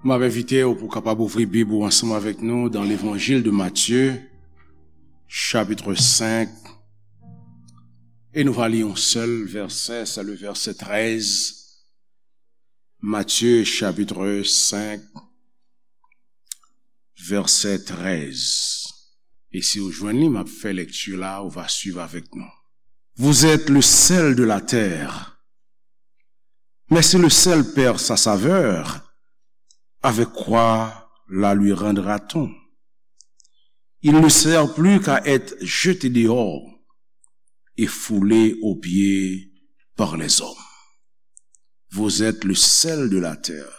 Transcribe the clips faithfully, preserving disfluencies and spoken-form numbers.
M ap envite w pou w kapab ouvri Bib ou ansanm avèk nou dans l'Évangile de Matthieu, chapitre cinq, e nou va li yon sèl vèsè, c'est le verset treize. Matthieu, chapitre cinq, verset treize. E si w jwenn li, m ap fè lèkti la, ou va swiv avèk nou. Vous êtes le sel de la terre. Mais si le sel perd sa saveur, avec quoi la lui rendra-t-on? Il ne sert plus qu'à être jeté dehors et foulé aux pieds par les hommes. Vous êtes le sel de la terre.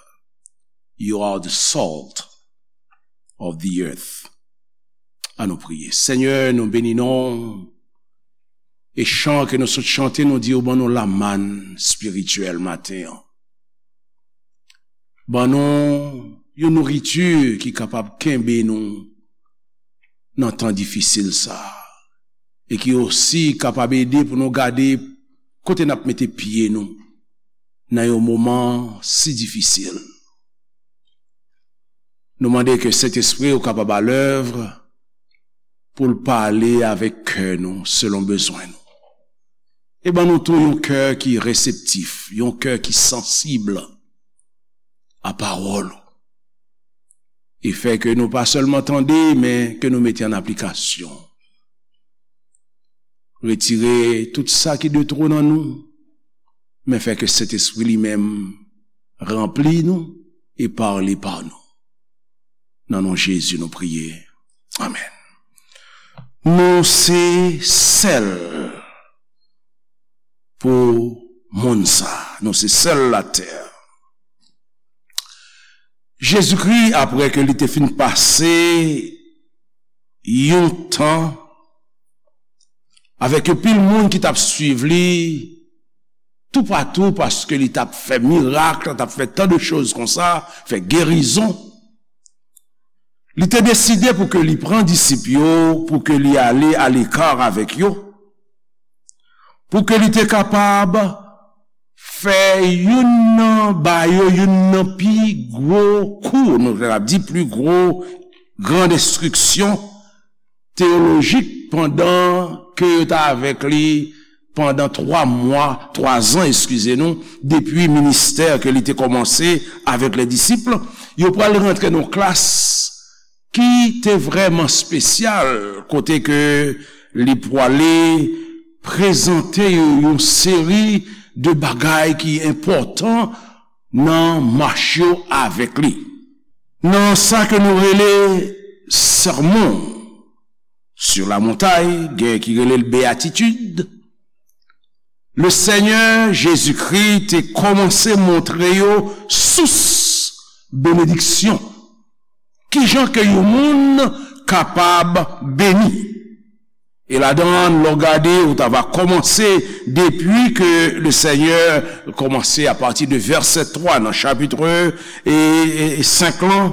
You are the salt of the earth. An nou priye. Senyè, nou beni non w. E chan ke nou sot chante, nou di w ban nou lamann espirityèl maten an. Ban nou yon nouriti ki kapab kenbe nou nan tan difisil sa a. E ki osi kapab ede pou nou gade kote n ap mete pye nou nan yon moman si difisil. Nou mande ke Sentespri w kapab alèv pou l pale avèk kè nou selon bezwen nou. E ban nou tou yon kè ki reseptif, yon kè ki sansib a pawòl ou. E fè ke nou pa sèlman tande, men ke nou mete an aplikasyon. Retire tout sa ki de two nan nou, men fè ke Sentespri li menm ranpli nou e pale pa nou. Nan non Jezi nou priye. Amèn. Nou se sèl pou monn sa. Nou se sèl latè. Jezikri, apre ke li te fin pase yon tan avèk yon pil moun ki t ap swiv li toupatou, paske li t ap fè mirak, li t ap fè tan de choz konsa, fè gerizon, li te deside pou ke li pran disip yo, pou ke li ale aleka avèk yo, pou ke li te kapab fè youn nan ba yo youn nan pi gwo kou, nou kapab di pi gwo gran enstriksyon teyolojik pandan ke yo t avèk li pandan twa mwa, twa zan, eskize nou, depi ministè ke li te kòmanse avèk les disciples. Yo pral rantre nan klas ki te vrèman espesyal, kote ke li pwale prezante yo yon seri de bagay ki enpòtan nan mach yo avèk li. Nan sa ke nou rele Sermon sur la Montagne, gen ki rele l Béatitude, le Senyè Jezikri te kòmanse montre yo sous benediksyon. Kijan ke yon moun kapab beni? E ladan, lè w gade, ou ta va kòmanse depi ke le Senyè kòmanse apati de vèsè twa nan chapit e, e, e senk lan,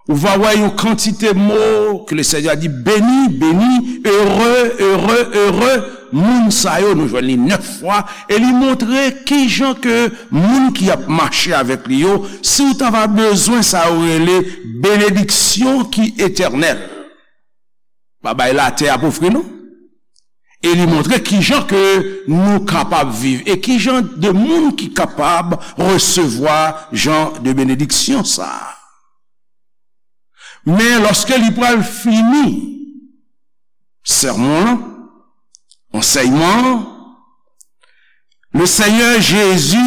ou va wè yon kantite mo ke le Senyè di, beni, beni, ere, ere, ere, moun sa yo, nou jwenn li nèf fwa, e li montre kijan ke moun ki ap mache avèk li yo, si w ta va bezwen sa yo rele benediksyon ki etènèl. Bagay latè ap ofri nou. E li montre kijan ke nou kapab viv e kijan de moun ki kapab resevwa jan de benediksyon sa a. Men lòske li pral fini sèmon an, ansèyman an, le Senyè Jezi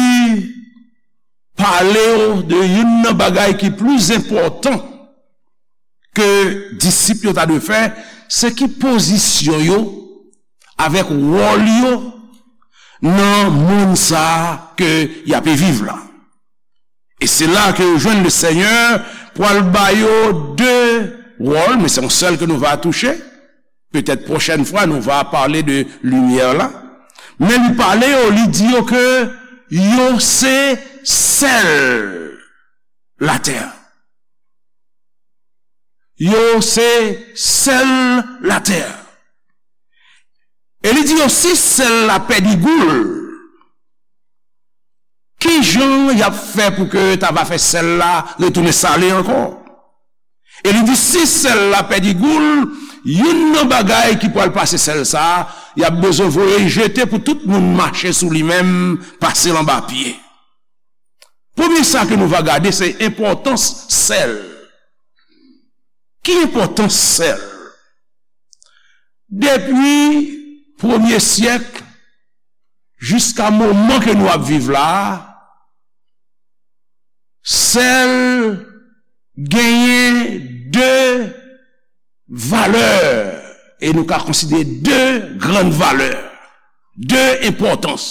pale w de youn nan bagay ki pli enpòtan ke disip yo ta dwe fè, se ki pozisyon yo avèk wòl yo nan monn sa a ke y ape viv la. E se la ke yo jwenn le Senyè pral ba yo de wòl, men se yon sèl ke nou va touche. Petèt pwochèn fwa, nou va pale de limyè la. Men li pale yo, li di yo ke yo se sèl latè. Yo se sèl latè. E li di yo, si sèl la pèdi gou l, Ki jan y ap fè pou ke ta va fè sèl la retounen sale ankò? E li di, si sèl la pèdi gou l, youn nan bagay ki pral pase sèl sa a, y ap bezwen voye l jete pou tout moun mache sou li menm, pase l anba pye. Premye sa ke nou va gade, se enpòtans sèl. Ki enpòtans sèl? Depi premye syèk jiska moman ke nou ap viv la a, sèl genyen de valè, e nou ka konsidere de grann valè, de enpòtans.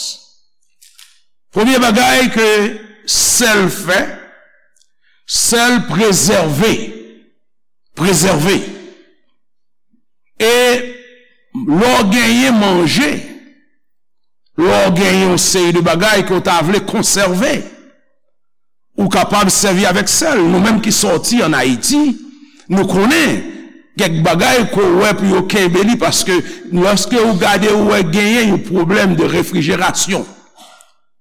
Premye bagay ke sèl fè, sèl prezève, prezève. E lè w genyen manje, lè w genyen yon seri de bagay ke w ta vle konsève, ou kapab sèvi avèk sèl. Nou menm ki sòti ann Ayiti, nou konnen kèk bagay ke w wè pou yo kenbe li, paske lòske ou gade, ou wè genyen yon pwoblèm de refrijerasyon.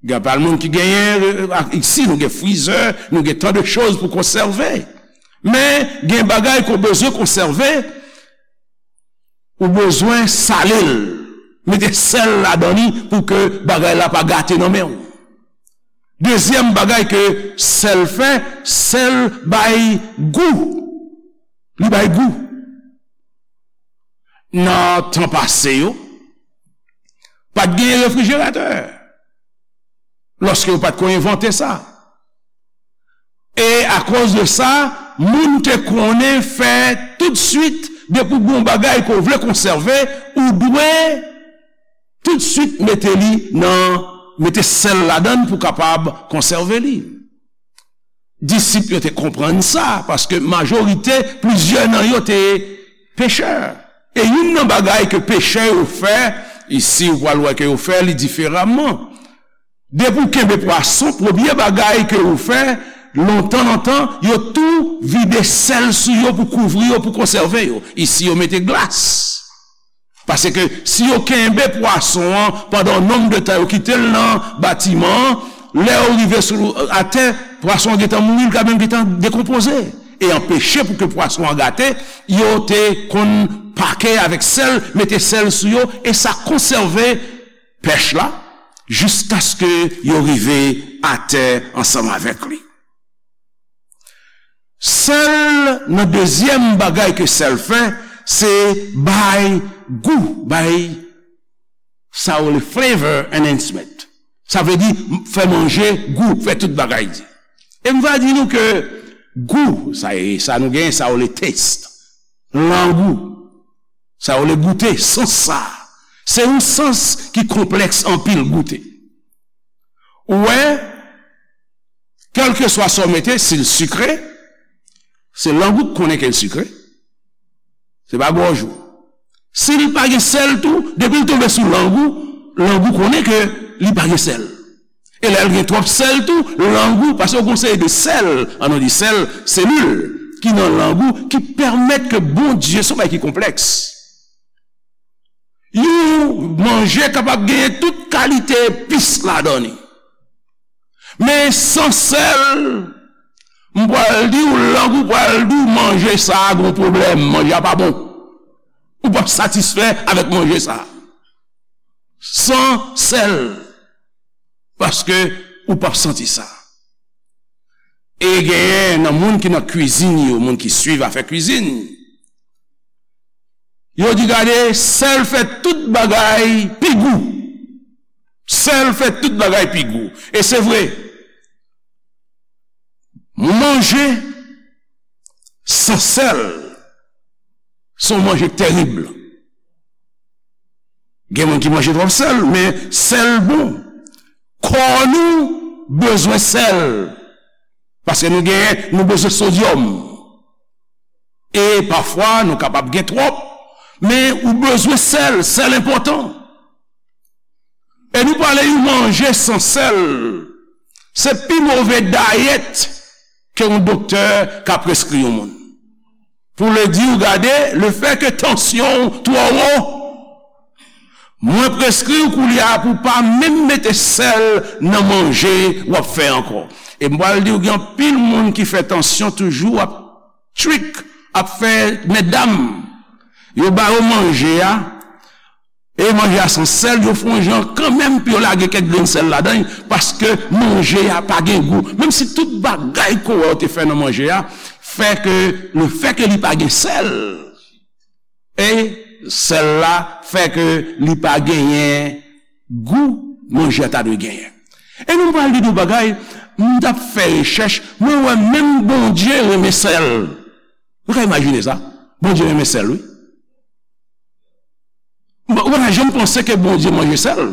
Gen anpil moun ki genyen, euh, ak, isi, nou gen frizè, nou gen tan de choz pou konsève. Men, gen bagay ke w bezwen konsève, ou bezwen sale l, mete sèl ladan li pou ke bagay la pa gate nan men w. Dezyèm bagay ke sèl fè, sèl bay gou. Li bay gou. Nan tan pase yo, pa t gen refrijeratè. Lòske yo pa t ko envante sa. E akoz de sa, moun te konnen fè toutswit, depi w gen yon bagay ke w vle konsève, ou dwe toutswit mete li nan, mete sèl ladan l pou kapab konsève li. Disip yo te konprann sa, paske majorite, plizyè nan yo te pechè. E youn nan bagay ke pechè yo fè, isi ou pral wè ke yo fè li diferaman. Depi w kenbe pwason, premye bagay ke yo fè, lontan, lontan, yo tou vide sèl sou yo pou kouvri yo, pou konsève yo. Isi, yo mete glas. Paske si yo kenbe pwason an pandan yon nonb de tan, yo kite l nan batiman an, lè yo rive sou, atè, pwason an gentan mouri, li ka menm gentan dekonpoze. E anpeche pou ke pwason an gate, yo te konn pake avèk sèl, mete sèl sou yo, e sa konsève pèch la, jiskaske yo rive atè ansanm avèk li. Sèl, nan dezyèm bagay ke sèl fè, se bay gou, bay sa yo rele flavor enhancement. Sa vle di fè manje gou, fè tout bagay di. E m va di nou ke gou, sa e, sa nou genyen, sa yo rele taste, langou, sa yo rele goute, sans sa, se yon sans ki konplèks anpil goute. Ou wè, kèlkeswa sa w mete, si l sikre, se lang ou k konnen ke l sikre. Se pa gòj ou. Si l pa gen sèl tou, depi l tonbe sou lang ou, lang ou konnen ke li pa gen sèl. E lè l gen twòp sèl tou, lang ou, paske w gen yon seri de sèl, an nou di sèl, selil, ki nan lang ou, ki pèmèt ke Bondye, se yon bagay ki konplèks. Yon manje kapab genyen tout kalite epis ladan li. Men san sèl, m pral di w, lang ou pral di w, manje sa a gon pwoblèm, manje a pa bon. Ou p ap satisfè avèk manje sa a. San sèl. Paske ou p ap santi sa. E genyen nan moun ki nan kwizin yo, moun ki swiv afè kwizin, yo di, gade, sèl fè tout bagay pi gou. Sèl fè tout bagay pi gou. E se vre. Manje san sèl, se yon manje k tèrib. Gen moun ki manje twòp sèl, men sèl bon. Kò nou bezwen sèl. Paske nou gen, nou bezwen sodyòm. E pafwa, nou kapab gen twòp, men ou bezwen sèl, sèl enpòtan. E nou pale yon manje san sèl, se pi move dayèt ke yon doktè ka preskri yon moun. Pou l di w, gade, lefètke tansyon w twò wo, Mwen preskri w koulye a pou w pa menm mete sèl nan manje w ap fè ankò. E m pral di w, gen anpil moun ki fè tansyon toujou ap trik, ap fè medam. Yo ba yo manje a, e manje a san sèl, yo fè yon jan kanmenm pou yo lage kèk grenn sèl ladan l, paske manje a pa gen gou. Menm si tout bagay ke w wè yo te fè nan manje a, fè ke, lefètke li pa gen sèl, e sèl la fè ke li pa genyen gou manje a ta dwe genyen. E nou pral di nou bagay, m t ap fè rechèch, mwen wè menm Bondye renmen sèl. Ou ka imajine sa? Bondye renmen sèl, wi. Bon, ou pa janm panse ke Bondye manje sèl?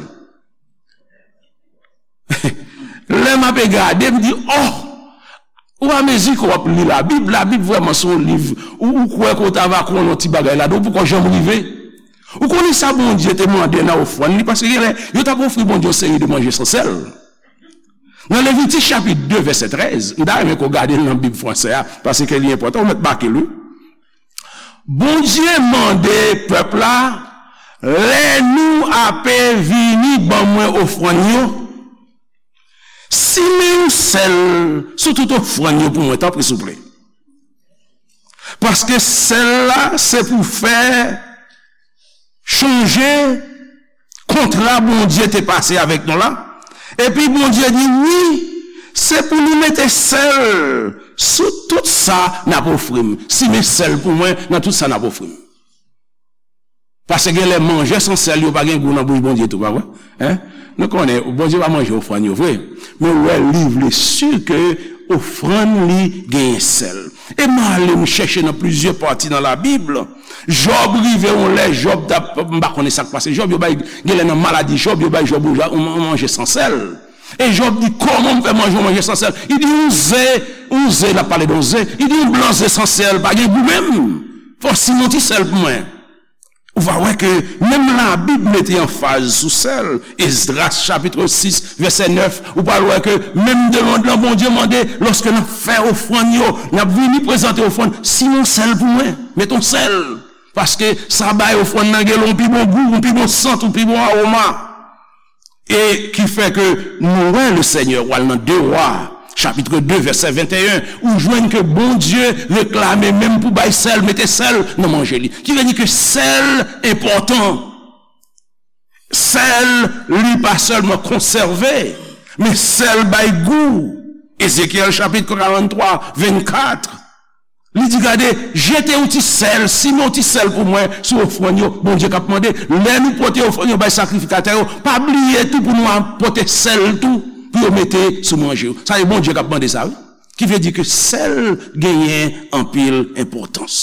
Lè m ape gade, m di, oh! Ou amezi ke w ap li Labib, Labib vrèman se yon liv, ou, ou kwè ke w ta va konnen yon ti bagay ladan, ou poko janm rive. Ou konnen sa Bondye te mande nan ofrann li, paske genlè, yo t ap ofri Bondye yon seri de manje san sèl. Nan Levitik chapit de, vèsè trèz, m ta renmen ke w gade l nan Bib fransè a, paske li enpòtan, ou mèt make l, wi. Bondye mande pèp la, lè nou ape vini ban mwen ofrann yo, simen yon sèl sou tout ofrann yo pou mwen, tanpri, souple. Paske sèl la, se pou fè chonje kontra Bondye te pase avèk nou la. Epi Bondye di, wi, se pou nou mete sèl sou tout sa n ap ofri m. Simen sèl pou mwen nan tout sa n ap ofri m. Paske genlè manje san sèl yo pa gen gou nan bouch Bondye tou, pa vre? Hein? Nou konnen, Bondye pa manje ofrann yo vre. Men ou wè, li vle si ke ofrann li genyen sèl. E m ale m chèche nan plizyè pati nan Labib. Jòb rive yon lè, Jòb t ap, m pa konnen sa k pase Jòb, yo bay, genlè nan maladi Jòb, yo bay Jòb yon ja-, yon, yon manje san sèl. E Jòb di, kòman m fè manje yon manje san sèl? Li di, yon ze, yon ze, l ap pale de yon ze. Li di, yon blan ze san sèl, pa gen gou menm. Fò w simen yon ti sèl pou mwen. Ou va wè ke menm Labib mete anfaz sou sèl. Esdras chapit sis, vèsè nèf, ou pral wè ke menm de lond lan Bondye mande, lòske n ap fè ofrann yo, n ap vini prezante ofrann, simen yon sèl pou mwen, met yon sèl. Paske sa bay ofrann nan gen yon pi bon gou, yon pi bon sant, yon pi bon awoma. E ki fè ke nou wè Lesenyè, w al nan de Wa, chapit de, vèsè venteyen, ou jwenn ke Bondye reklame menm pou bay sèl, mete sèl nan manje li. Ki vle di ke sèl enpòtan. Sèl, li pa sèlman konsève, men sèl bay gou. Ezekyèl chapit karanntwa, vennkat. Li di, gade, jete yon ti sèl, simen yon ti sèl pou mwen sou ofrann yo. Bondye k ap mande, lè nou pote ofrann yo bay sakrifikatè yo, pa bliye tou pou nou ap pote sèl tou, pou yo mete sou manje yo. Sa e Bondye k ap mande sa, wi. Ki vle di ke sèl genyen anpil enpòtans.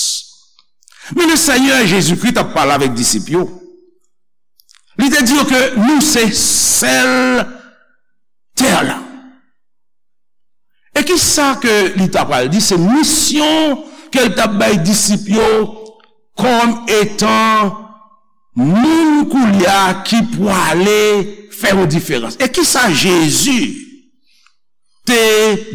Men Lesenyè Jezikri t ap pale avèk disip yo. Li te di yo ke nou se sèl tè la. E ki sa ke li ta pral di? Se misyon ke l t ap bay disip yo kòm etan moun koulye a ki pwale fè yon diferans. E ki sa Jezi te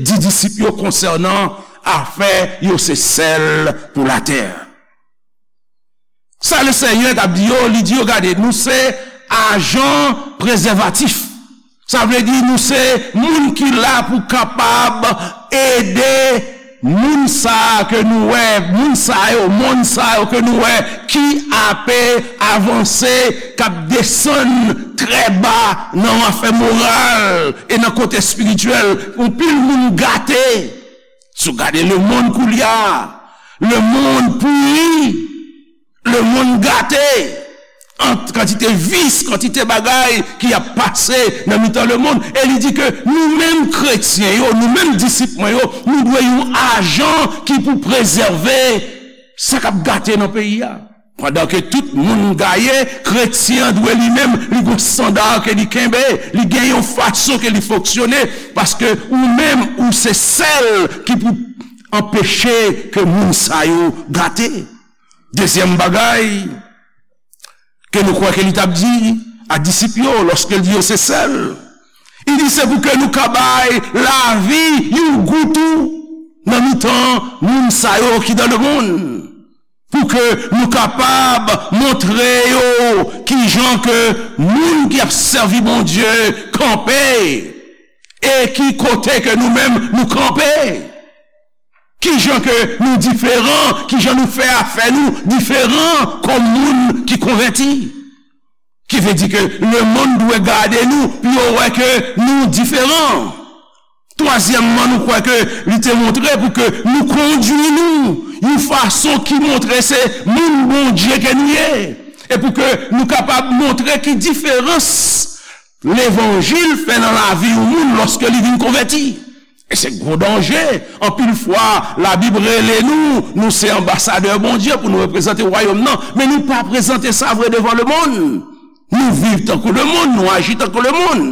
di disip yo konsènan afè yo se sèl pou latè? Sa Lesenyè t ap di yo, li di yo, gade, nou se ajan prezèvatif. Sa vle di nou se moun ki la pou kapab ede moun sa a ke nou wè, moun sa yo, monn sa yo ke nou wè ki ape avanse, k ap desann trè ba nan afè moral e nan kote espirityèl. Anpil moun gate. Si w gade lemonn koulye a, lemonn pouri, lemonn gate, ant kantite vis, kantite bagay ki ap pase nan mitan lemonn. E li di ke nou menm kretyen yo, nou menm disip mwen yo, nou dwe yon ajan ki pou prezève sa k ap gate nan peyi a. Pandan ke tout moun gaye, kretyen an dwe li menm, li gon estanda ke li kenbe, li gen yon fason ke li fonksyone, paske ou menm, ou se sèl ki pou anpeche ke moun sa yo gate. Dezyèm bagay ke nou kwè ke li t ap di a disip yo, lòske l di yo se sèl, li di se pou ke nou ka bay lavi yon gou tou nan mitan moun sa yo ki dan lemonn. Pou ke nou kapab montre yo kijan ke moun ki ap sèvi Bondye kanpe e ki kote ke nou menm nou kanpe. Kijan ke nou diferan, kijan nou fè afè nou diferan kòm moun ki konvèti. Ki vle di ke lemonn dwe gade nou pou yo wè ke nou diferan. Twazyèmman, nou kwè ke li te montre pou ke nou kondui nou yon fason ki montre se moun Bondye ke nou ye. E pou ke nou kapab montre ki diferans levanjil fè nan lavi yon moun lòske li vin konvèti. E se gwo danje. Anpil fwa, Labib rele nou, nou se anbasadè Bondye pou nou reprezante wayòm nan. Men nou pa prezante sa vre devan lemonn. Nou viv tankou lemonn, nou aji tankou lemonn.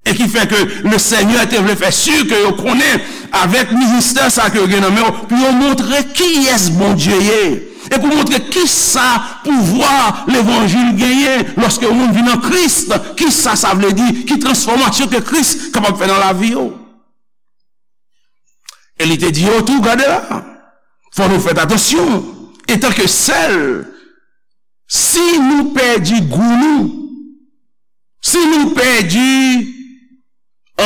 E ki fè ke le Senyè te vle fè si ke yo konnen avèk ministè sa ke yo gen nan men yo, pou yo montre kiyès Bondye ye. E pou montre kisa pouvwa levanjil genyen lòske yon moun vin an Kris, kisa sa vle di, ki transfòmasyon ke Kris kapab fè nan lavi yo. E li te di yo tou, gade la, fò nou fè atansyon, etanke sèl, si nou pèdi gou nou, si nou pèdi,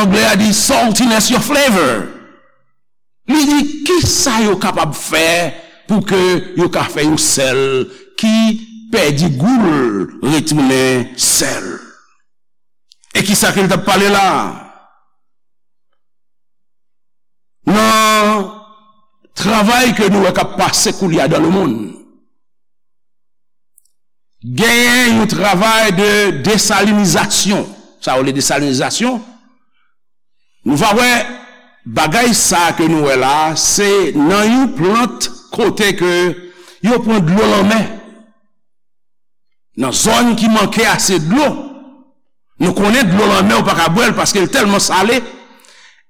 anglè a di saltiness your flavor, li di, kisa yo kapab fè pou ke yo ka fè yon sèl ki pèdi gou l retounen sèl? E kisa ke l t ap pale la? Nan travay ke nou wè k ap pase koulye a dan lemonn, genyen yon travay de desalinizasyon. Sa yo rele desalinizasyon. Nou va wè bagay sa ke nou wè la, se nan yon plant kote ke yo pran dlo lanmè. Nan zòn ki manke ase dlo, nou konnen dlo lanmè ou pa ka bwè l paske l tèlman sale.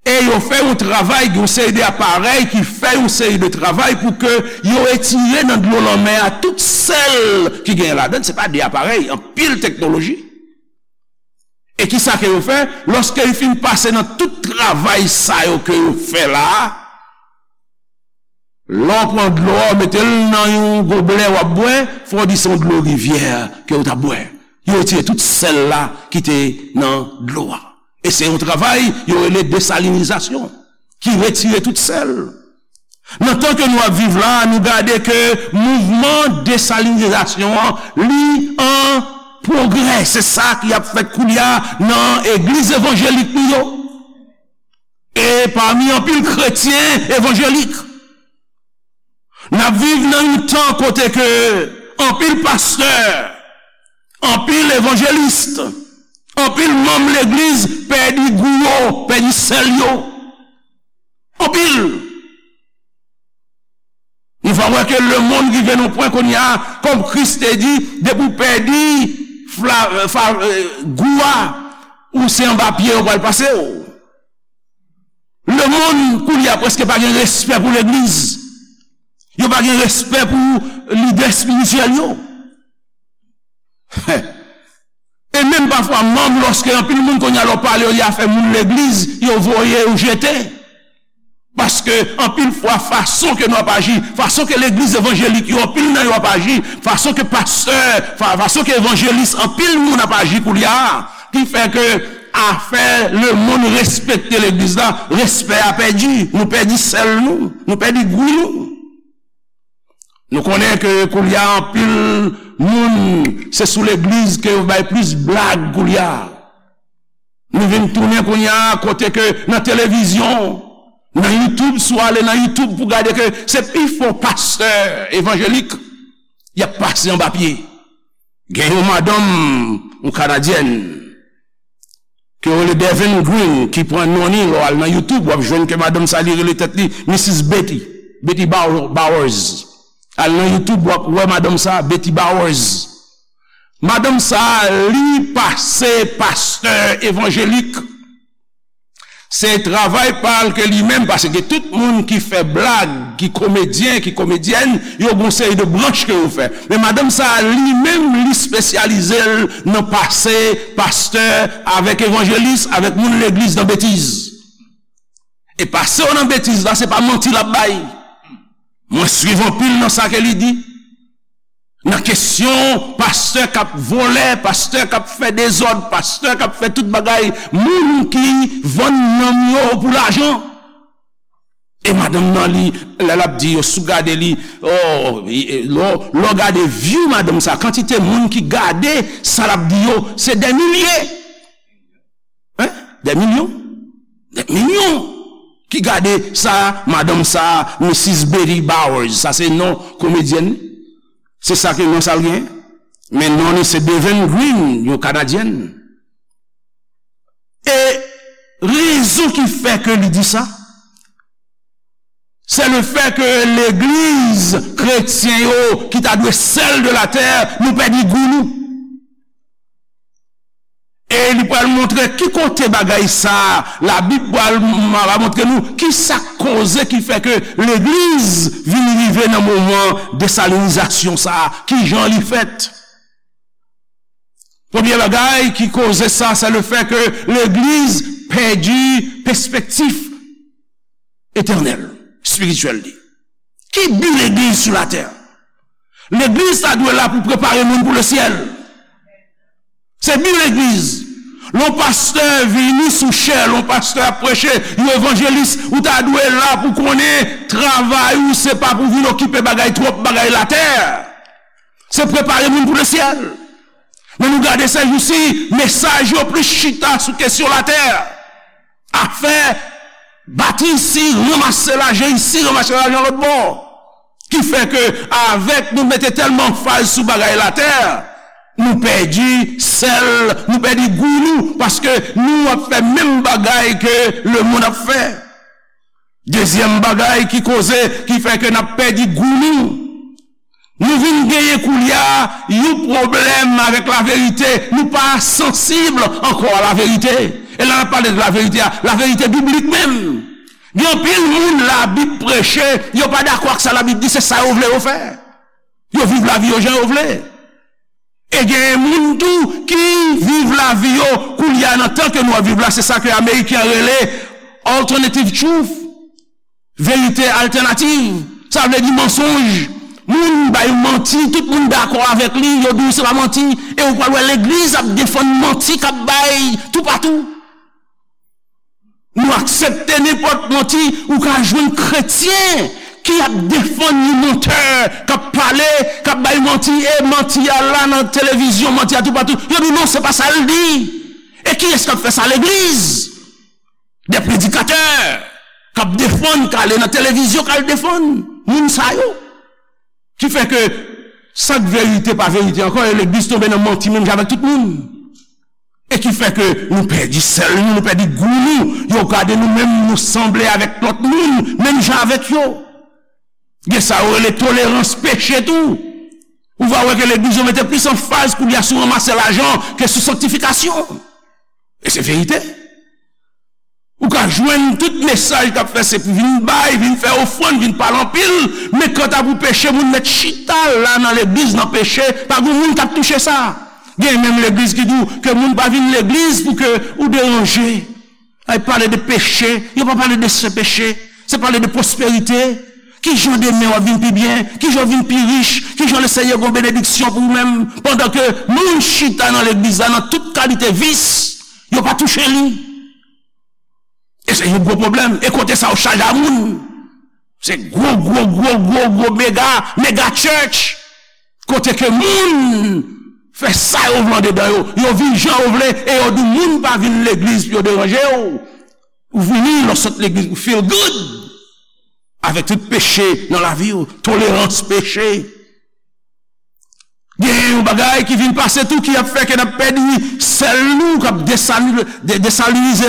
E yo fè yon travay, gen yon seri de aparèy ki fè yon seri de travay pou ke yo retire nan dlo lanmè a tout sèl ki gen ladan l. Se pa de aparèy, anpil teknoloji. E kisa ke yo fè? Lòske yo fin pase nan tout travay sa yo ke yo fè la a, lè w pran dlo a, w mete l nan yon goblè w ap bwè, fò w di se yon dlo rivyè ke w t ap bwè. Yo retire tout sèl la ki te nan dlo a. E se yon travay yo rele desalinizasyon, ki retire tout sèl. Nan tan ke nou ap viv la, nou gade ke mouvman desalinizasyon an, li an pwogrè. Se sa ki ap fèt koulye a nan egliz evanjelik nou yo. E pami anpil kretyen evanjelik, n ap viv nan yon tan kote ke anpil pastè, anpil evanjelis, anpil manm legliz pèdi gou yo, pèdi sèl yo. Anpil. Nou va wè ke lemonn rive nan pwen kounye a, kòm Kris te di, depi w pèdi fla, fa, gou a, ou se anba pye yo pral pase w. Lemonn kounye a prèske pa gen respè pou legliz. Yo pa gen respè pou lidè espirityèl yo. E menm pafwa, manm, lòske anpil moun kounye a lè w pale yo de afè moun legliz, yo voye yo jete. Paske anpil fwa, fason ke nou ap aji, fason ke legliz evanjelik yo, anpil nan yo ap aji, fason ke pastè, fa, fason ke evanjelis, anpil moun ap aji koulye a, ki fè ke afè lemonn respekte legliz la, respè a pèdi, nou pèdi sèl nou, nou pèdi gou nou. Nou konnen ke koulye a anpil moun, se sou legliz ke yo bay plis blag koulye a. Nou vin tounen kounye a kote ke nan televizyon, nan YouTube, si w ale nan YouTube pou gade ke se pifò pastè evanjelik y ap pase anba pye. Gen yon madanm, yon kanadyèn, ke yo rele Devin Green, ki pran non li, lè w al nan YouTube, w ap jwenn ke madanm sa li rele tèt li Misis Betty, Betty Bow-, Bowers. Al nan YouTube, w ap wè madanm sa, Betty Bowers. Madanm sa, li pase pastè evanjelik. Se travay pa l ke li menm, paske tout moun ki fè blag, ki komedyen, ki komedyèn, yo gon seri de branch ke yo fè. Men madanm sa a, li menm, li espesyalize l nan pase pastè avèk evanjelis, avèk moun legliz nan betiz. E pase yo nan betiz la, se pa manti l ap bay. Mwen swiv anpil nan sa ke li di. Nan kesyon pastè k ap vòlè, pastè k ap fè dezòd, pastè k ap fè tout bagay, moun ki vann nanm yo pou lajan. E madanm nan, li, lè l ap di yo, si w gade li, oh, lè w gade view madanm sa, kantite moun ki gade sa l ap di yo, se dè milye. Hein? Dè milyon? Dè milyon ki gade sa, madanm sa, Misis Betty Bowers, sa se non komedyèn li. Se sa ke non sa l gen. Men non li se Deven Green, yon Kanadyèn. E rezon ki fè ke li di sa, se le fè ke legliz kretyen yo ki ta dwe sèl de la tè, nou pèdi gou nou. E li pral montre ki kote bagay sa, Labib pral m- va montre nou ki sa k koze ki fè ke legliz vin rive nan moman desalinizasyon sa, ki jan li fèt. Premye bagay ki koze sa, se le fè ke legliz pèdi pespektif etènèl, espirityèl li. Ki bi legliz sou latè? Legliz ta dwe la pou prepare moun pou lesyèl. Se bi legliz. Lè yon pastè vini sou chè, lè yon pastè ap preche, yon evanjelis, ou ta dwe la pou konnen travay ou se pa pou vin okipe bagay twòp, bagay latè. Se prepare moun pou lesyèl. Men nou gade sèjousi, mesaj yo plis chita sou kesyon latè. Afè bat isi, ranmase lajan isi, ranmase lajan lòt bò. Ki fè ke avèk nou mete tèlman anfaz sou bagay latè, nou pèdi sèl, nou pèdi gou nou, paske nou ap fè menm bagay ke lemonn ap fè. Dezyèm bagay ki koze, ki fè ke n ap pèdi gou nou, nou vin genyen koulye a yon pwoblèm avèk laverite. Nou pa sansib ankò a laverite. E lè n ap pale de laverite a, laverite biblik menm. Gen anpil moun Labib preche, yo pa dakò ak sa Labib di, se sa yo vle yo fè. Yo viv lavi yo jan yo vle. E gen moun tou ki viv lavi yo koulye a nan tan ke nou ap viv la, se sa ke Ameriken an rele alternative truth, verite altènativ. Sa vle di mansonj. Moun bay manti, tout moun dakò avèk li, yo di w se pa manti, e ou pral wè legliz ap defann manti k ap bay toupatou. Nou aksepte nenpòt manti, ou ka jwenn kretyen ki ap defann yon mantè, k ap pale, k ap bay manti, e manti a la nan televizyon, manti a toupatou. Yo di non, se pa sa l di. E kiyès k ap fè sa? Legliz. Dè predikatè k ap defann, k ale nan televizyon, k al defann moun sa yo. Ki fè ke sa k verite pa verite ankò, e legliz tonbe nan manti menm jan avèk tout moun. E ki fè ke nou pèdi sèl nou, nou pèdi gou nou. Yo gade nou menm, nou sanble avèk lòt moun, menm jan avèk yo. Gen sa yo rele tolerans peche tou. Ou va wè ke legliz yo mete plis anfaz koulye a sou ranmase lajan ke sou sanktifikasyon. E se verite. Ou ka jwenn tout mesaj k ap fè se pou vin bay, vin fè ofrann, vin pale anpil, men kanta pou peche, moun mèt chita la nan legliz nan peche, pa gen moun k ap touche sa. Gen menm legliz ki di w ke moun pa vin legliz pou ke ou deranje. Ay pale de peche, yo pa pale de se peche, se pale de pwosperite. Ki jan demen w ap vin pi byen? Ki jan w vin pi rich? Ki jan Lesenyè gen yon benediksyon pou ou menm? Pandan ke moun chita nan legliz la nan tout kalite vis, yo pa touche li. E se yon gwo pwoblèm. E kote sa yo chaje a moun. Se gwo, gwo, gwo, gwo, gwo mega, mega church. Kote ke moun fè sa yo vle andedan yo. Yo viv jan yo vle e yo di moun pa vin legliz pou yo deranje w. Ou vini, lè w sot legliz, ou feel good. Avèk tout peche nan lavi w, tolerans peche. Gen yon bagay ki vin pase tou ki ap fè ke n ap pèdi sèl nou, k ap desali- de- desalinize,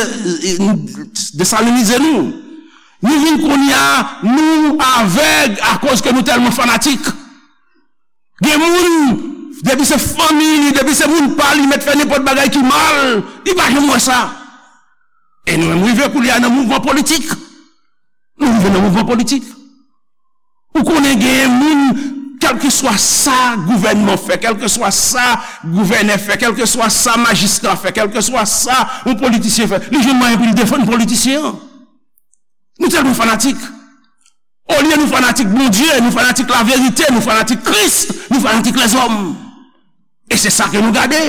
desalinize nou. Nou vin kounye a, nou avèg akoz ke nou tèlman fanatik. Gen moun, depi se fanmi li, depi se moun pa li, mèt fè nenpòt bagay ki mal, li pa janm wè sa. E nou menm rive kounye a nan mouvman politik. Nou rive nan mouvman politik. Ou konnen genyen moun, kèlkeswa sa gouvènman fè, kèlkeswa sa gouvènè fè, kèlkeswa sa majistra fè, kèlkeswa sa yon politisyen fè, li jwenn mwayen pou li defann politisyen an. Nou tèlman fanatik. Olye nou fanatik Bondye, nou fanatik laverite, nou fanatik Kris, nou fanatik lèzòm. E se sa ke nou gade.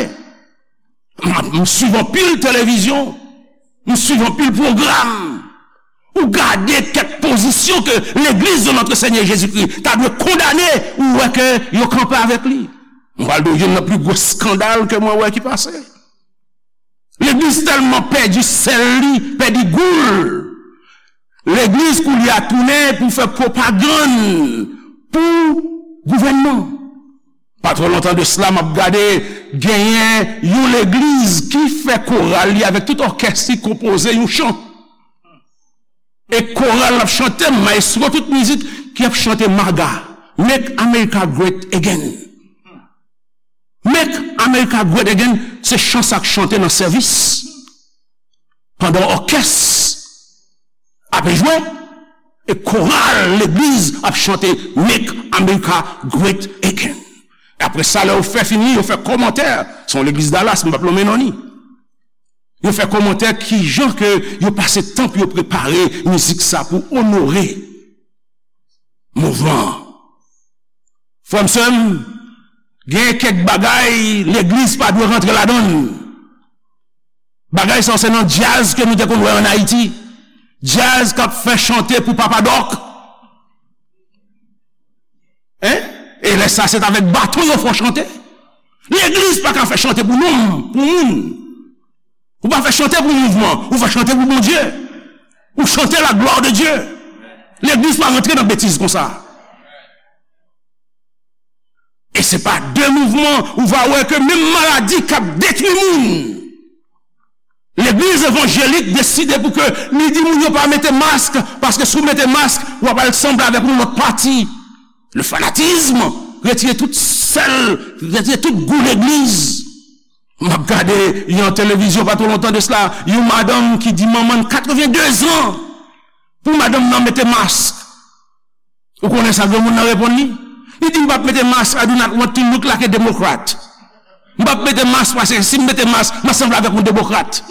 M, m swiv anpil televizyon, m swiv anpil pwogram. Ou gade kèk pozisyon ke legliz de notre Seigneur Jésus-Christ ta dwe kondane, ou wè ke yo kanpe avèk li. M pral di w youn nan pli gwo eskandal ke mwen wè ki pase. Legliz tèlman pèdi sèl li, pèdi gou l. Legliz koulye a tounen pou fè pwopagann pou gouvènman. Pa twò lontan de sila, m ap gade, genyen yon legliz ki fè koral li avèk tout òkès li konpoze yon chan. E koral l ap chante, mayestwo tout mizik ki ap chante MAGA, Make America Great Again. Make America Great Again, se chan sa k chante nan sèvis. Pandan òkès ap jwe, e koral legliz ap chante Make America Great Again. E apre sa, lè yo fè fini, yo fè kòmantè. Se yon legliz Dallas, m p ap nonmen non li. Yo fè kòmantè kijan ke yo pase tan pou yo prepare mizik sa pou onore mouvman an. Frè m, sè m, gen kèk bagay legliz pa dwe rantre ladan l. Bagay sa se nan djaz ke nou te konn wè ann Ayiti. Djaz k ap fè chante pou Papa Dòk. Hein? E lè sa se t avèk baton yo fè w chante. Legliz pa ka fè chante pou nonm, pou moun. Ou pa fè chante pou mouvman, ou fè chante pou Bondye. Ou chante la gloire de Dieu. Legliz pa rantre nan betiz konsa. E se pa de mouvman ou va wè ke menm maladi k ap detwi moun. Legliz evanjelik deside pou ke li di moun yo pa mete mask, paske si w mete mask, w ap al sanble avèk yon lòt pati. Le fanatisme, retire tout sèl, retire tout gou legliz. M ap gade yon televizyon pa twò lontan de sila, yon madanm ki di manman l katrevenndezan pou madanm nan mete mask. Ou konnen sa granmoun nan reponn li? Li di, "M p ap mete mask, I do not want to look like a Democrat." M p ap mete mask paske si m mete mask, m ap sanble avèk yon demokrat.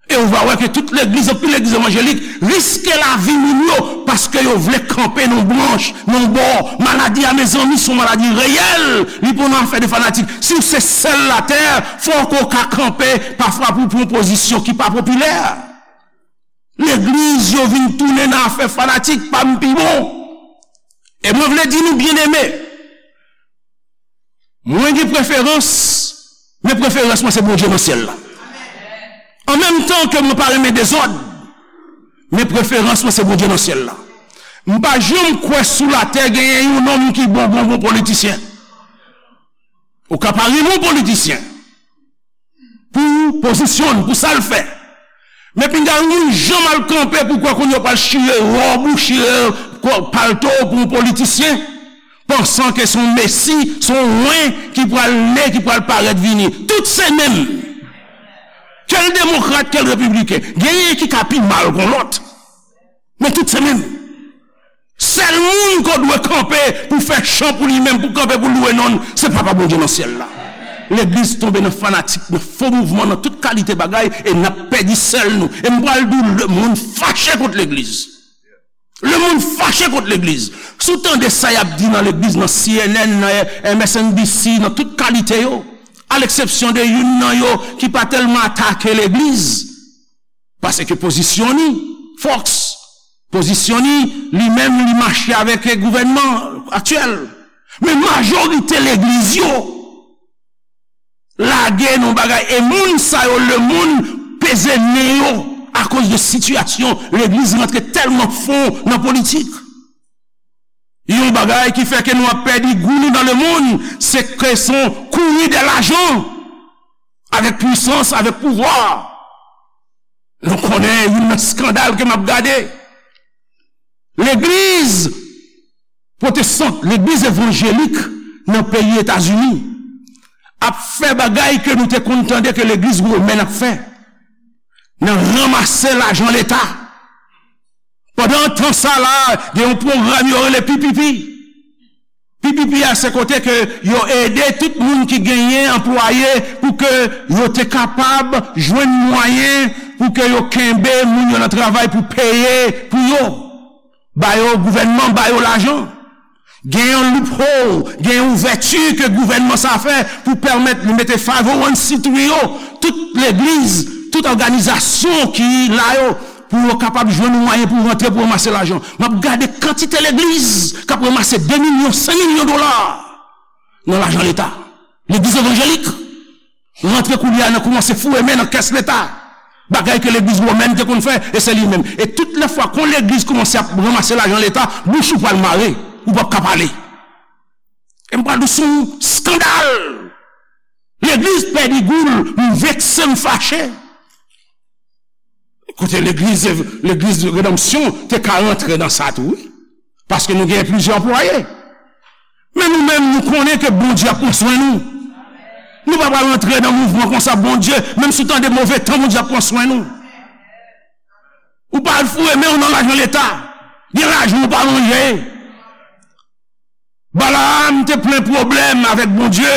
E ou va wè ke tout legliz, anpil legliz evanjelik, riske lavi moun yo paske yo vle kanpe nan branch, nan bò. Maladi a, mezanmi, se yon maladi reyèl. Li pa yon afè de fanatik. Si w se sèl latè, fòk ou ka kanpe pafwa pou pran pozisyon ki pa popilè. Legliz yo vin tounen nan afè fanatik, pa m pi bon. E mwen vle di nou, byeneme, mwen gen preferans, men preferans mwen se Bondye nan syèl la. An menm tan ke mwen pa renmen dezòd, men preferans mwen se Bondye nan syèl la. M pa janm kwè sou latè genyen yon nonm ki bon, bon, bon politisyen. Ou ka pa renmen yon politisyen pou pozisyon l, pou sa l fè. Men pinga yon moun janm al kanpe pou kwè kounye a w pral chire wòb ou, chire palto w pou yon politisyen, pansan ke se yon mesi, se yon wen ki pral ne, ki pral parèt vini. Tout se menm. Ke l demokrat, ke l repibliken. Genyen ki ka pi mal kon lòt. Men tout se menm. Sèl moun ke w dwe kanpe pou fè chan pou li menm, pou kanpe pou lwe non l, se Papa Bondye nan syèl la. Legliz tonbe nan fanatik, nan fo mouvman, nan tout kalite bagay, e n ap pèdi sèl nou. E m pral di w, lemonn fache kont legliz. Lemonn fache kont legliz. Si w tande sa y ap di nan legliz, nan C N N, nan M S N B C, nan tout kalite yo, a leksepsyon de youn nan yo ki pa tèlman atake legliz, paske pozisyon li, Fox, pozisyon li, li menm, li mache avèk gouvènman aktyèl. Men majorite legliz yo lage nan bagay, e moun sa yo, lemonn peze nen yo akoz de sitiyasyon legliz rantre tèlman fon nan politik. Yon bagay ki fè ke nou ap pèdi gou nou nan lemonn, se ke se yon kouri dè lajan, avèk pwisans, avèk pouvwa. Nou konnen youn nan eskandal ke m ap gade. Legliz pwotestan, legliz evanjelik nan peyi Etazini ap fè bagay ke nou te konn tande ke legliz womèn ap fè, nan ranmase lajan Leta. Pandan tan sa la, gen yon pwogram yo rele P P P. P P P a, se kote ke yo ede tout moun ki genyen anplwaye pou ke yo te kapab jwenn mwayen pou ke yo kenbe moun yo nan travay pou peye pou yo. Ba yo, gouvènman ba yo lajan. Gen yon loophole, gen yon ouvèti ke gouvènman sa fè pou pèmèt li mete five oh one C three yo, tout legliz, tout òganizasyon ki la yo, pou yo kapab jwenn yon mwayen pou rantre pou ranmase lajan. M ap gade kantite legliz k ap ranmase de milyon, senk milyon dola nan lajan leta. Legliz evanjelik rantre koulye a nan kòmanse foure men nan kès leta. Bagay ke legliz womèn te konn fè, e se li menm. E tout lè fwa kon legliz kòmanse ap ranmase lajan leta, bouch ou pral mare, ou p ap ka pale. E m pral di w se yon skandal. Legliz pèdi gou l, m vekse, m fache. Kote legliz, legliz Redanmsyon te ka rantre nan sa tou, wi. Paske nou gen plizyè anplwaye. Men nou menm, nou konnen ke Bondye ap pran swen nou. Nou pa pral rantre nan mouvman konsa, Bondye, menm si w tande move tan, Bondye ap pran swen nou. Ou pa al foure men w nan lajan leta. Gen lajan ou pa manje. Balaam te plen pwoblèm avèk Bondye,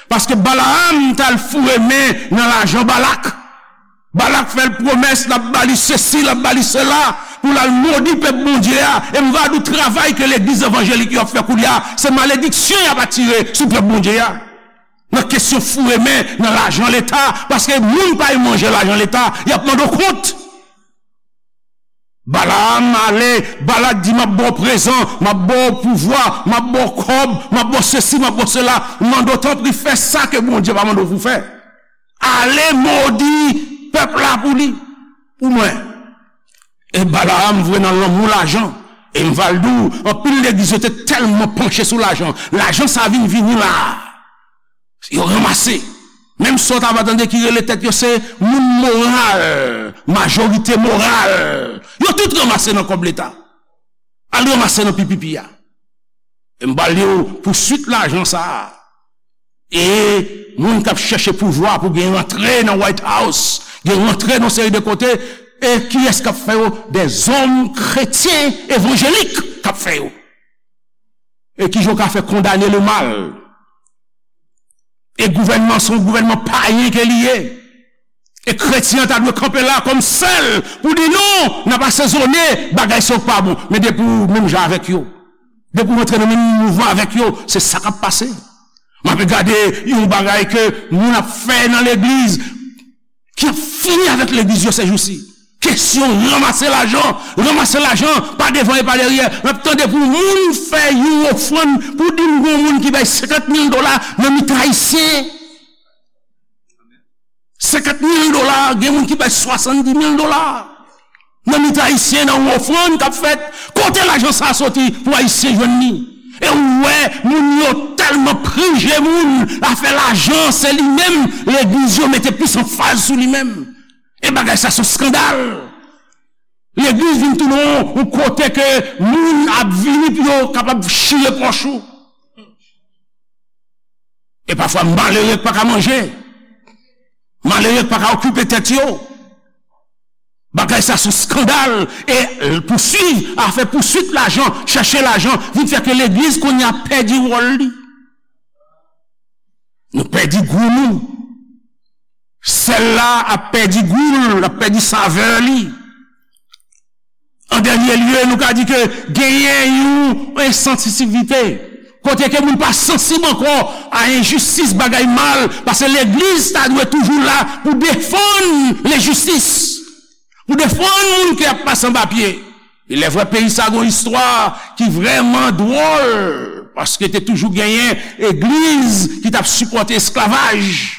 paske Balaam t al foure men nan lajan Balak. Balak fè l pwomès, l ap ba li sesi, l ap ba li sela, pou l al modi pèp Bondye a. E m va di w, travay ke legliz evanjelik yo ap fè koulye a, se malediksyon y ap atire sou pèp Bondye a. Nan kesyon foure men nan lajan leta, paske moun pa manje lajan leta, y ap mande w kont. Balaam ale, Balak di, "M ap ba w prezan, m ap ba w pouvwa, m ap ba w kòb, m ap ba w sesi, m ap ba w sela." Mande w, tanpri, fè sa ke Bondye pa mande w pou fè. Ale modi pèp la pou li, pou mwen. E Balaam vre nan lanmou lajan. E m va l di w, anpil legliz yo te tèlman panche sou lajan. Lajan sa vin vini la. Yo ranmase. Menm sa w ta va tande ki rele tèt yo se moun moral, majorite moral. Yo tout ranmase nan kòb leta. Al ranmase nan P P P a. E m pral di w pouswit lajan sa a. E moun k ap chèche pouvwa pou gen rantre nan White House, gen rantre nan seri de kote, e kiyès k ap fè yo? Dèzòm kretyen evanjelik k ap fè yo. E kijan w ka fè kondane lemal? E gouvènman, se yon gouvènman payen ke li ye. E kretyen an ta dwe kanpe la kòm sèl pou di non, n ap asezone bagay sa yo k pa bon. Men depi w menm jan avèk yo, depi w rantre nan menm mouvman avèk yo, se sa k ap pase. M ape gade yon bagay ke moun ap fè nan legliz, ki ap fini avèk legliz yo sèjousi. Kesyon ranmase lajan, ranmase lajan, pa devan e pa dèyè. M ap tande pou moun fè yon ofrann, pou di m gon moun ki bay senkant mil dola nan mitan ayisyen. Senkant mil dola, gen moun ki bay swasanndis mil dola. Nan mitan ayisyen, nan yon ofrann k ap fèt, kote lajan sa a soti pou ayisyen jwenn li? E ou wè, moun yo tèlman prije moun, afè lajan, se li menm, legliz yo mete plis anfaz sou li menm. E bagay sa se yon skandal. Legliz vin tounen yon, yon kote ke moun ap vini pou yo kapab chire pòch ou. E pafwa malere k pa ka manje. Malere k pa ka okipe tèt yo. Bagay sa se yon skandal. E pouswiv, afè pouswit lajan, chèche lajan, vin fè ke legliz kounye a pèdi wòl li. Nou pèdi gou nou. Sèl la ap pèdi gou l, l ap pèdi savè li. An dènye lye, nou ka di ke genyen yon ensansitivite. Kote ke moun pa sansib ankò a enjistis, bagay mal, paske legliz ta dwe toujou la pou defann lenjistis, pou defann moun ki ap pase anba pye. E lè vrè peyi sa gon istwa ki vrèman dwòl, paske te toujou genyen egliz ki t ap sipòte esklavaj.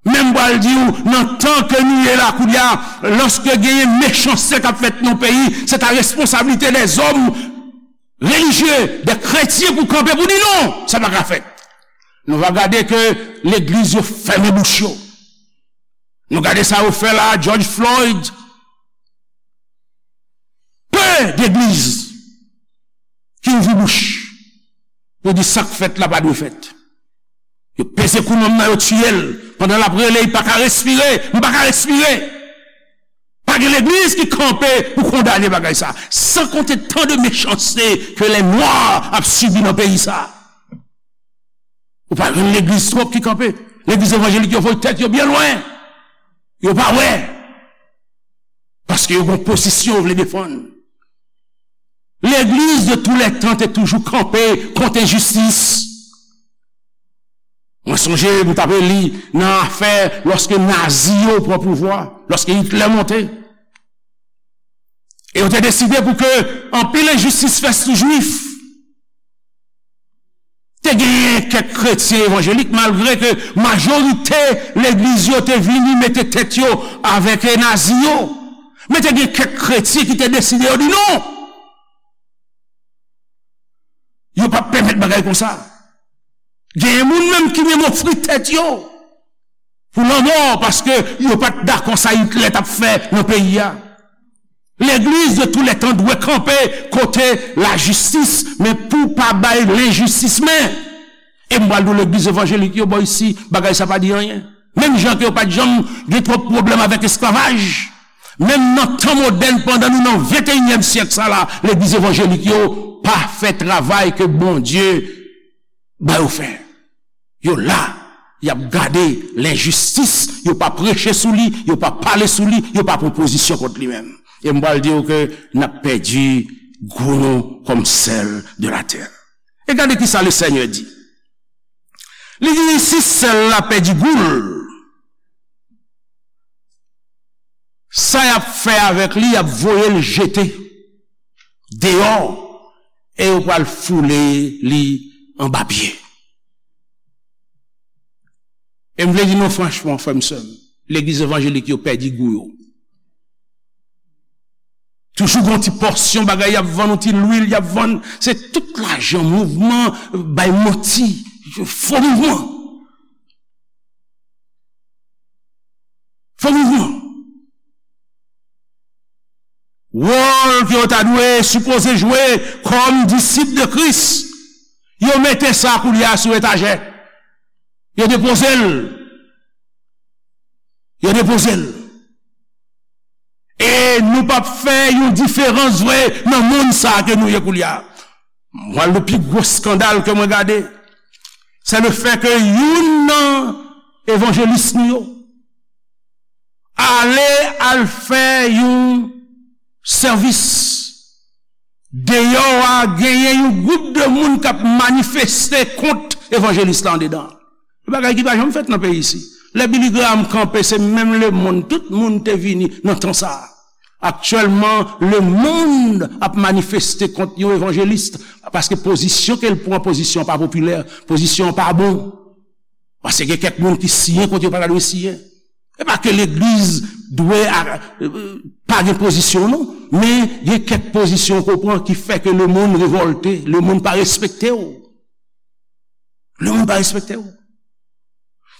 Men m pral di w, nan tan ke nou ye la kounye a, lòske genyen mechanste k ap fèt nan yon peyi, se ta responsablite dèzòm relijye, de kretyen pou kanpe pou di non, sa pa ka fèt. Nou va gade ke legliz yo fèmen bouch yo. Nou gade sa yo fè la, George Floyd. Pe degliz ki ouvri bouch pou di sa k fèt la pa dwe fèt. Yo peze kou nonm nan, yo tiye l. Pandan l ap rele, li pa ka respire. M pa ka respire. Pa gen legliz ki kanpe pou kondane bagay sa. San konte tan de mechanste ke lè nwa ap sibi nan peyi sa. Ou pa jwenn legliz twòp ki kanpe. Legliz evanjelik yo voye tèt yo byen lwen. Yo pa wè. Paske yo gon pozisyon yo vle defann. Legliz de tou lè tan te toujou kanpe kont enjistis. Mwen sonje m t ap li nan afè lòske Nazi yo pran pouvwa, lòske Itlè monte. E yo te deside pou ke anpil enjistis fèt sou Jwif. Te genyen kèk kretyen evanjelik, malgre ke majorite legliz yo te vini mete tèt yo avèk Nazi yo. Men te gen kèk kretyen ki te deside, yo di non! Yo p ap pèmèt bagay konsa. Genyen moun menm ki menm ofri tèt yo pou lanmò, paske yo pa t dakò sa Itlè t ap fè nan peyi a. Legliz de tou lè tan dwe kanpe kote lajistis, men pou pa bay lenjistis men. E m pral di w, legliz evanjelik yo bò isi, bagay sa pa di anyen. Menm jan ke yo pa t janm gen twòp pwoblèm avèk esklavaj, menm nan tan modèn, pandan nou nan venteyinyèm syèk sa la, legliz evanjelik yo pa fè travay ke Bondye ba yo fè. Yo la, y ap gade lenjistis, yo pa preche sou li, yo pa pale sou li, yo pa pran pozisyon kont li menm. E m pral di w ke n ap pèdi gou nou kòm sèl de latè. E gade ki sa Lesenyè di. Li di, si sèl la pèdi gou l, sa y ap fè avèk li, y ap voye l jete deyò, e yo pral foule li anba pye. E m vle di nou franchman, frè m, sè m, legliz evanjelik yo pèdi gou yo. Toujou gon ti pòsyon bagay y ap vann, yon ti lwil y ap vann. Se tout lajan, mouvman, bay manti, fo mouvman. Fo mouvman. Wòl ke yo ta dwe sipoze jwe kòm disip de Kris, yo mete sa koulye a sou etajè. Yo depoze l. Yo depoze l. E nou p ap fè yon diferans vre nan monn sa a ke nou ye koulye a. Mwen, le pi gwo skandal ke mwen gade, se le fè ke youn nan evanjelis nou yo ale al fè yon sèvis deyò a, genyen yon gwoup de moun k ap manifeste kont evanjelis la andedan. Yon bagay ki pa janm fèt nan peyi isi. Lè Billy Graham kanpe, se menm lemonn, tout moun te vini nan tan sa a. Aktyèlman, lemonn ap manifeste kont yon evanjelis, paske pozisyon ke l pran, pozisyon an pa popilè, pozisyon an pa bon. Paske gen kèk moun ki siyen kote yo pa ta dwe siyen. E pa ke legliz dwe a, pa gen pozisyon, non, men gen kèk pozisyon ke w pran ki fè ke lemonn revòlte, lemonn pa respekte w. Lemonn pa respekte w.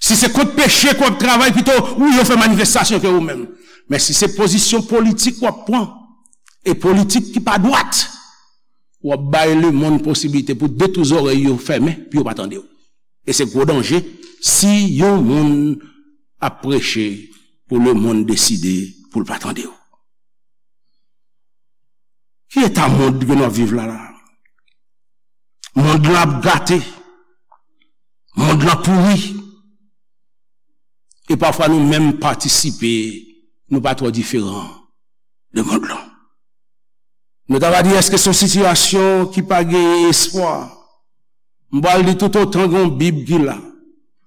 Si se kont peche ke w ap travay, pito ou yo fè manifestasyon ke ou menm. Men si se pozisyon politik w ap pran, e politik ki pa dwat, w ap bay lemonn posiblite pou de tou zòrèy yo fèmen, pou yo pa tande w. E se gwo danje si yon moun ap preche pou lemonn deside pou l pa tande w. Ki eta mond ke n ap viv la la? Mond lan ap gate. Mond lan pouri. E pafwa nou menm patisipe, nou pa twò diferan de mond lan. Nou ta va di, èske se yon sitiyasyon ki pa gen espwa? M pral di, toutotan gen yon Bib ki la,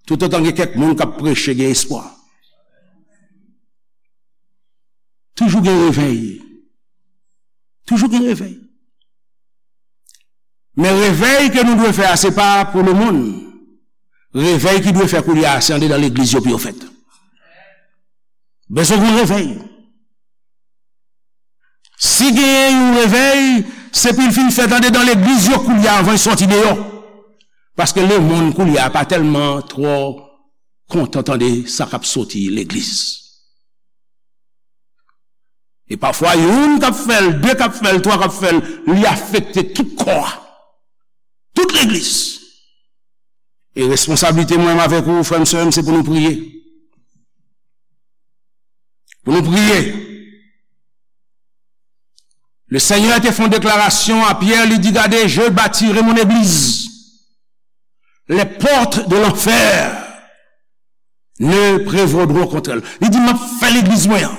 toutotan gen kèk moun k ap preche, gen espwa. Toujou gen revèy. Toujou gen revèy. Men revèy ke nou dwe fè a, se pa pou lemonn. Revèy ki dwe fè koulye a, se andedan legliz yo pou yo fèt. Bezwen gen revèy. Si genyen yon revèy, se pou l fin fèt andedan legliz yo koulye a anvan l sòti deyò. Paske lemonn koulye a pa tèlman twò kontan tande sa k ap soti legliz. E pafwa, youn k ap fè l, de k ap fè l, twa k ap fè l, li afekte tout kò a, tout legliz. E responsablite mwen avèk ou, frè m, sè m, se pou nou priye. Pou nou priye. Le Seigneur te fè yon deklarasyon a Pyè, li di, gade, je bâtirai mon église. Les portes de l'enfer ne prévaudront contre elle. Li di, m ap fè legliz mwen an.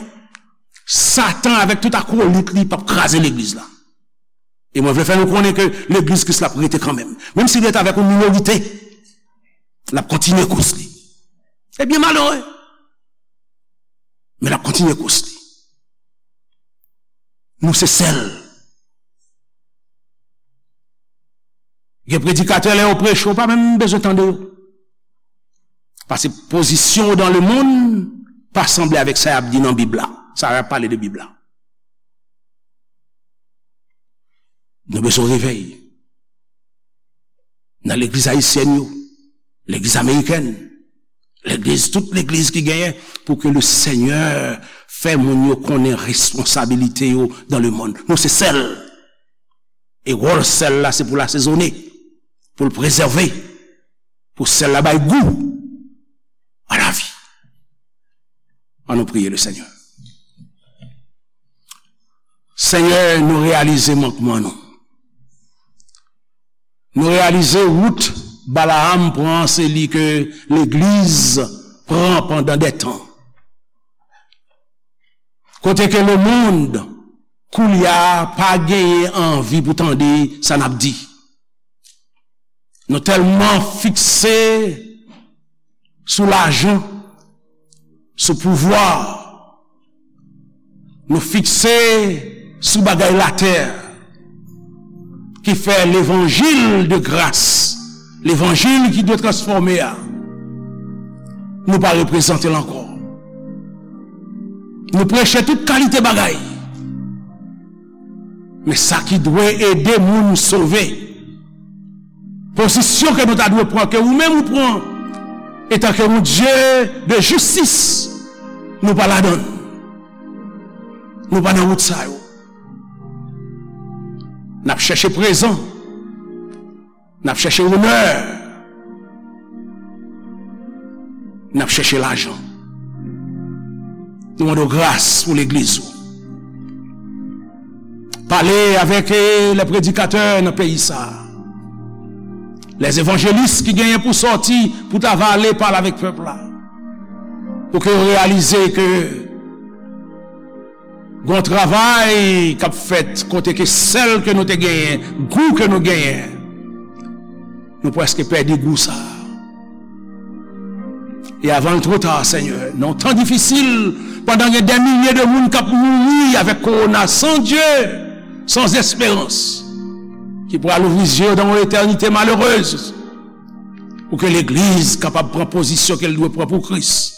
Satan avèk tout akolit li p ap kraze legliz la. E mwen vle fè nou konnen ke legliz Kris la ap rete kanmenm. Menm si li rete avèk yon minorite, l ap kontinye kous li. E byen malere. Men l ap kontinye kous li. Nou se sèl. Gen predikatè, lè yo preche, ou pa menm bezwen tande yo. Paske pozisyon w dan lemonn pa sanble avèk sa y ap di nan Bib la. Sa y ap pale de Bib la. Nou bezwen revèy. Nan legliz ayisyèn yo, legliz amerikèn, legliz, tout legliz ki genyen, pou ke le Senyè fè moun yo konnen responsabilite yo dan lemonn. Nou se sèl. E wòl sèl la, se pou l asezone, pou l prezève, pou sèl la bay gou a lavi. Ann nou priye le Senyè. Senyè, nou reyalize mankman nou. Nou reyalize wout Balaam pran, se li ke legliz pran pandan de tan. Kote ke lemonn, koulye a, pa genyen anvi pou tande sa n ap di. Nou tèlman fikse sou lajan, sou pouvwa, nou fikse sou bagay latè, ki fè levanjil de gras, levanjil ki dwe transfòme a, nou pa reprezante l ankò. Nou preche tout kalite bagay. Men sa ki dwe ede moun sove, pozisyon ke nou ta dwe pran, ke ou menm ou pran, etanke yon Dye de jistis, nou pa ladan l. Nou pa nan wout sa yo. N ap chèche prezan. N ap chèche onè. N ap chèche lajan. Nou mande w gras pou legliz ou. Pale avèk, eh, lè predikatè nan peyi sa a. Lè evanjelis ki genyen pou sòti, pou ta va ale pale avèk pèp la. Pou ke yo reyalize ke gon travay k ap fèt kote ke sèl ke nou te genyen, gou ke nou genyen, nou prèske pèdi gou sa a. E avan l twò ta, Senyè, nan yon tan difisil, pandan gen dè milye de moun k ap mouri avèk kowona, san Dye, san esperans, ki pral ouvri zye yo dan yon etènite malerèz, pou ke legliz kapab pran pozisyon ke l dwe pran pou Kris,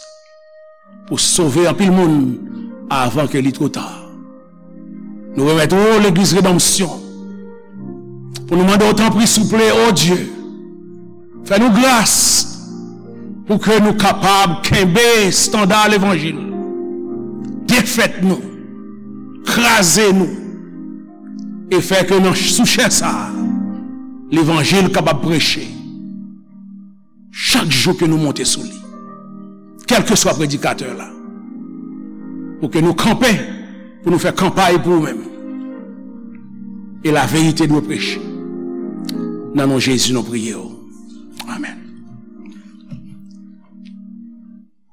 pou sove anpil moun avan ke li twò ta. Nou remèt ou legliz Redanmsyon, pou nou mande w, tanpri, souple, o Dye, fè nou gras pou ke nou kapab kenbe estanda levanjil, defèt nou, kraze nou, e fè ke nan, sou chè sa a, levanjil kapab preche chak jou ke nou monte sou li, kèlkeswa predikatè la, pou ke nou kanpe, pou nou fè kanpay pou ou menm. E laverite dwe preche. Nan non Jezi, nou priye w.